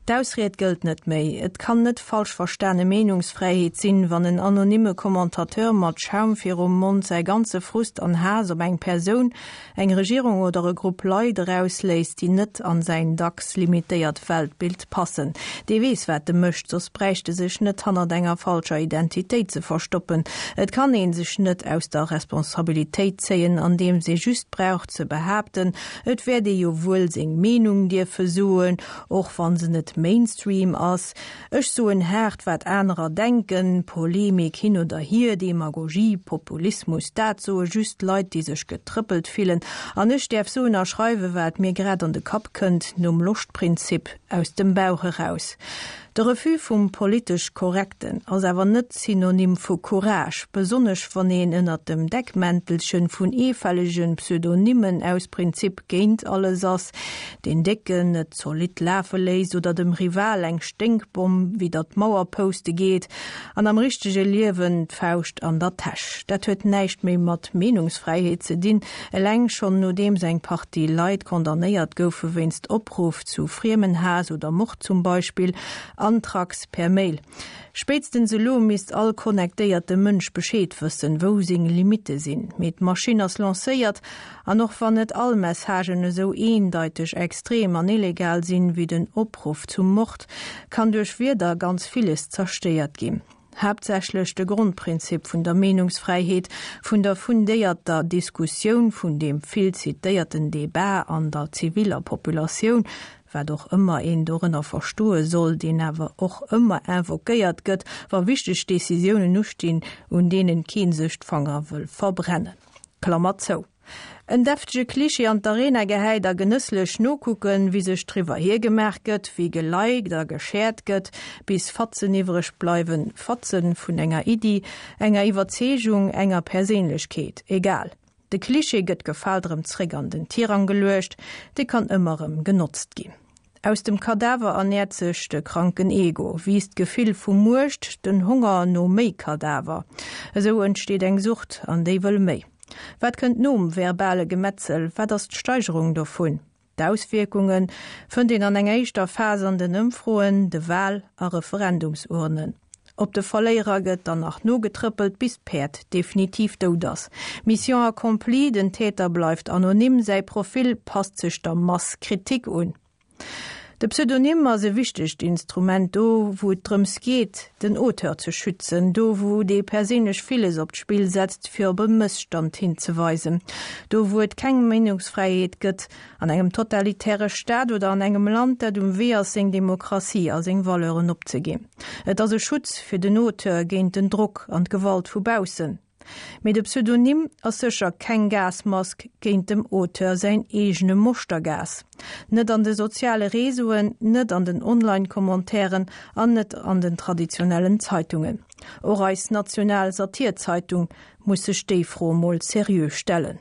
D'Ausried gëllt net méi. Et kann net falsch verstane Meenungsfräiheet sinn, wann en anonyme Commentateur mat Schaum virum Mond säi ganze Frust an Haass op eng Persoun, eng Regierung oder e Grupp Leit erausléisst, déi net an säin dacks limitéiert Weltbild passen. Dee weess, wat e mécht, soss bräicht e sech net hannert enger falscher Identitéit ze verstoppen. Et kann ee sech net aus der Responsabilitéit zéien, andeems ee just brauch ze behaapten, et wäert ee jo wuel seng Meenung dierfe soen, Och wann se net Mainstream ass. Ech soen haart wat anerer denken. Polemik hin oder hier, Demagogie, Populismus, dat soe just Leit déi sech getrëppelt fillen. An ech däerf soen a schreiwe wat mir grad an de Kapp kënnt, nom Loschtprinzip, aus dem Bauch eraus. De Refus vum politesch Korrekten ass awer net Synonym vu Courage, besonnesch wann een ënnert dem Deckmäntelchen vun eefällege Pseudonymen aus Prinzip géint alles ass, deen Décken et zolidd lafe léisst oder dem Rival eng Sténkbomm widder d'Mauer pouste geet an am richtege Liewen d'Fauscht an der Täsch. Dat huet näischt méi mat Meenungsfräiheet ze dinn, eleng schonn nodeems eng Partie Leit condamnéiert goufe wéinst Opruff zu Friemenhaass oder Mord zum Beispill, Anthrax per Mail. Spéitstens elo misst all connectéierte Mënsch Bescheed wëssen, wou seng Limitte sinn. Mee d'Maschinn ass lancéiert An och wann net all Messagen esou eendeiteg extrem an illegal sinn, wéi den Opruff zum Mord, kann duerch Wierder ganz villes zerstéiert ginn. Haaptsächlech de Grondprinzip vun der Meenungsfräiheet, vun der fundéierter Diskussioun, vun deem vill zitéierten Debat an der ziviller Populatioun, wat och ëmmer een dorënner verstoe soll, deen awer och ëmmer invoquéiert gëtt, wa wichteg Decisiounen ustinn, un deenen kee sech d'Fanger wëll verbrennen. Klammer zou. En deftege Klischee an d'Arena gehäit a genësslech nokucken, wéi sech driwwer hiergemaach gëtt, wéi geliked a geshared gëtt, bis Fatzen iwwreg bleiwen, Fatzen vun enger Iddi, enger Iwwerzeegung, enger Perséinlechkeet, egal. De Klischee gëtt gefaalt erëm zréck an den Tirang geluecht, dee kann ëmmer erëm genotzt ginn. Aus dem Kadaver ernäert sech de kranken Ego, wiisst d'Gefill vu Muecht, den Honger no méi Kadaver. Esou entsteet eng Sucht, an déi wëll méi. Wat kënnt nom verbale Gemetzel? Wat ass d'Steigerung dovun? D'Auswierkunge fënnt een an enger éischter Phas an den Ëmfroen, de Wal a Referendumsurnen. Op de Verléierer gëtt dann nach nogetrëppelt, bis d'Päerd definitiv dout ass. Mission accomplie, den Täter bleift anonym, säi Profil passt sech der Mass Kritik un. De Pseudonym ass e wichtegt Instrument, do wou et drëms geet, den Auteur ze schützen, do wou dee perséinlech villes op d'Spill setzt, fir op e Mësstand hinzeweisen, do wou et keng Meenungsfräiheet gëtt, An engem totalitäre Staat oder an engem Land, dat um Wee ass, seng Demokratie a seng Valeuren opzeginn. Et ass e Schutz fir den Auteur géint den Drock an d'Gewalt vu baussen. Mee de Pseudonym ass sécher keng Gasmask géint dem Auteur säin eegene Moschtergas. Net an de soziale Réseauen, net an den Online-Commentairen an net an den traditionellen Zeitungen. Och eis national Satirzeitung muss sech déi Fro mol seriö stellen.